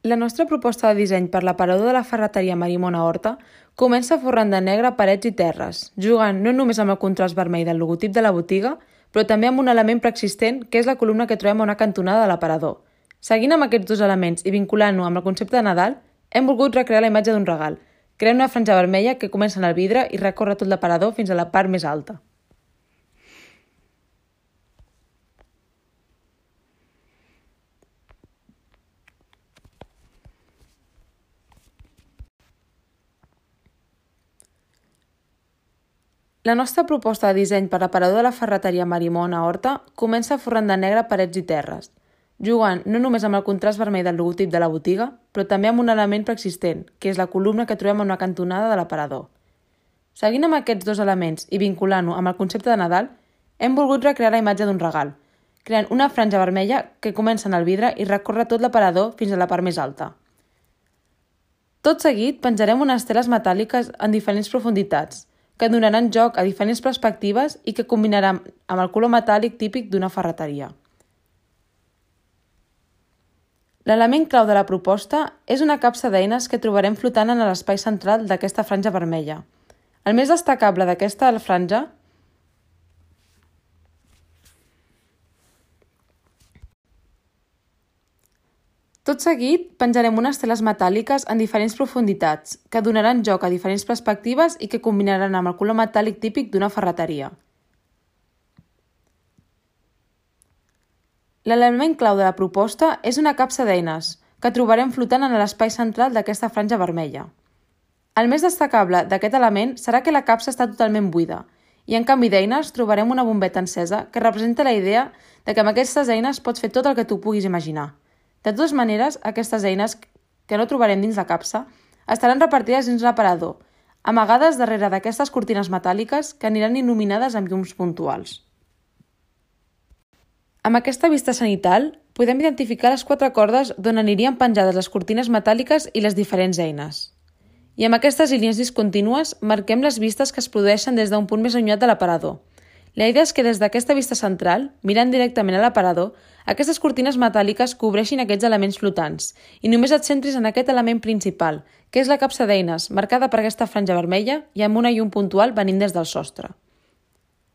La nostra proposta de disseny per l'aparador de la ferreteria Marimona Horta comença forrant de negre parets i terres, jugant no només amb el contrast vermell del logotip de la botiga, però també amb un element preexistent que és la columna que trobem a una cantonada de l'aparador. Seguint amb aquests dos elements i vinculant-ho amb el concepte de Nadal, hem volgut recrear la imatge d'un regal, creant una franja vermella que comença en el vidre i recorre tot l'aparador fins a la part més alta. La nostra proposta de disseny per l'aparador de la ferreteria Marimona Horta comença forrant de negre parets i terres, jugant no només amb el contrast vermell del logotip de la botiga, però també amb un element preexistent, que és la columna que trobem en una cantonada de l'aparador. Seguint amb aquests dos elements i vinculant-ho amb el concepte de Nadal, hem volgut recrear la imatge d'un regal, creant una franja vermella que comença en el vidre i recorre tot l'aparador fins a la part més alta. Tot seguit penjarem unes teles metàl·liques en diferents profunditats, que donaran joc a diferents perspectives i que combinaran amb el color metàl·lic típic d'una ferreteria. L'element clau de la proposta és una capsa d'eines que trobarem flotant en l'espai central d'aquesta franja vermella. El més destacable d'aquesta franja Tot seguit, penjarem unes teles metàl·liques en diferents profunditats, que donaran joc a diferents perspectives i que combinaran amb el color metàl·lic típic d'una ferreteria. L'element clau de la proposta és una capsa d'eines, que trobarem flotant en l'espai central d'aquesta franja vermella. El més destacable d'aquest element serà que la capsa està totalment buida, i en canvi d'eines trobarem una bombeta encesa que representa la idea de que amb aquestes eines pots fer tot el que tu puguis imaginar. De totes maneres, aquestes eines, que no trobarem dins la capsa, estaran repartides dins l'aparador, amagades darrere d'aquestes cortines metàl·liques que aniran il·luminades amb llums puntuals. Amb aquesta vista cenital, podem identificar les 4 cordes d'on anirien penjades les cortines metàl·liques i les diferents eines. I amb aquestes línies discontínues marquem les vistes que es produeixen des d'un punt més allunyat de l'aparador. La idea és que des d'aquesta vista central, mirant directament a l'aparador, aquestes cortines metàl·liques cobreixin aquests elements flotants i només et centris en aquest element principal, que és la capsa d'eines, marcada per aquesta franja vermella i amb una llum puntual venint des del sostre.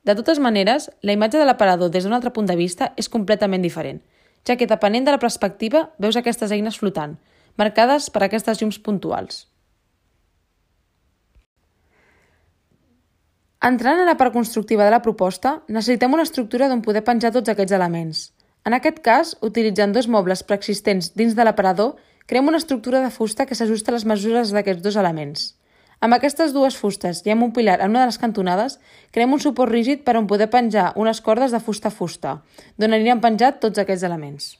De totes maneres, la imatge de l'aparador des d'un altre punt de vista és completament diferent, ja que depenent de la perspectiva veus aquestes eines flotant, marcades per aquestes llums puntuals. Entrant a la part constructiva de la proposta, necessitem una estructura d'on poder penjar tots aquests elements. En aquest cas, utilitzant 2 mobles preexistents dins de l'aparador, creem una estructura de fusta que s'ajusta a les mesures d'aquests 2 elements. Amb aquestes 2 fustes i amb un pilar en una de les cantonades, creem un suport rígid per on poder penjar unes cordes de fusta a fusta, d'on aniran penjats tots aquests elements.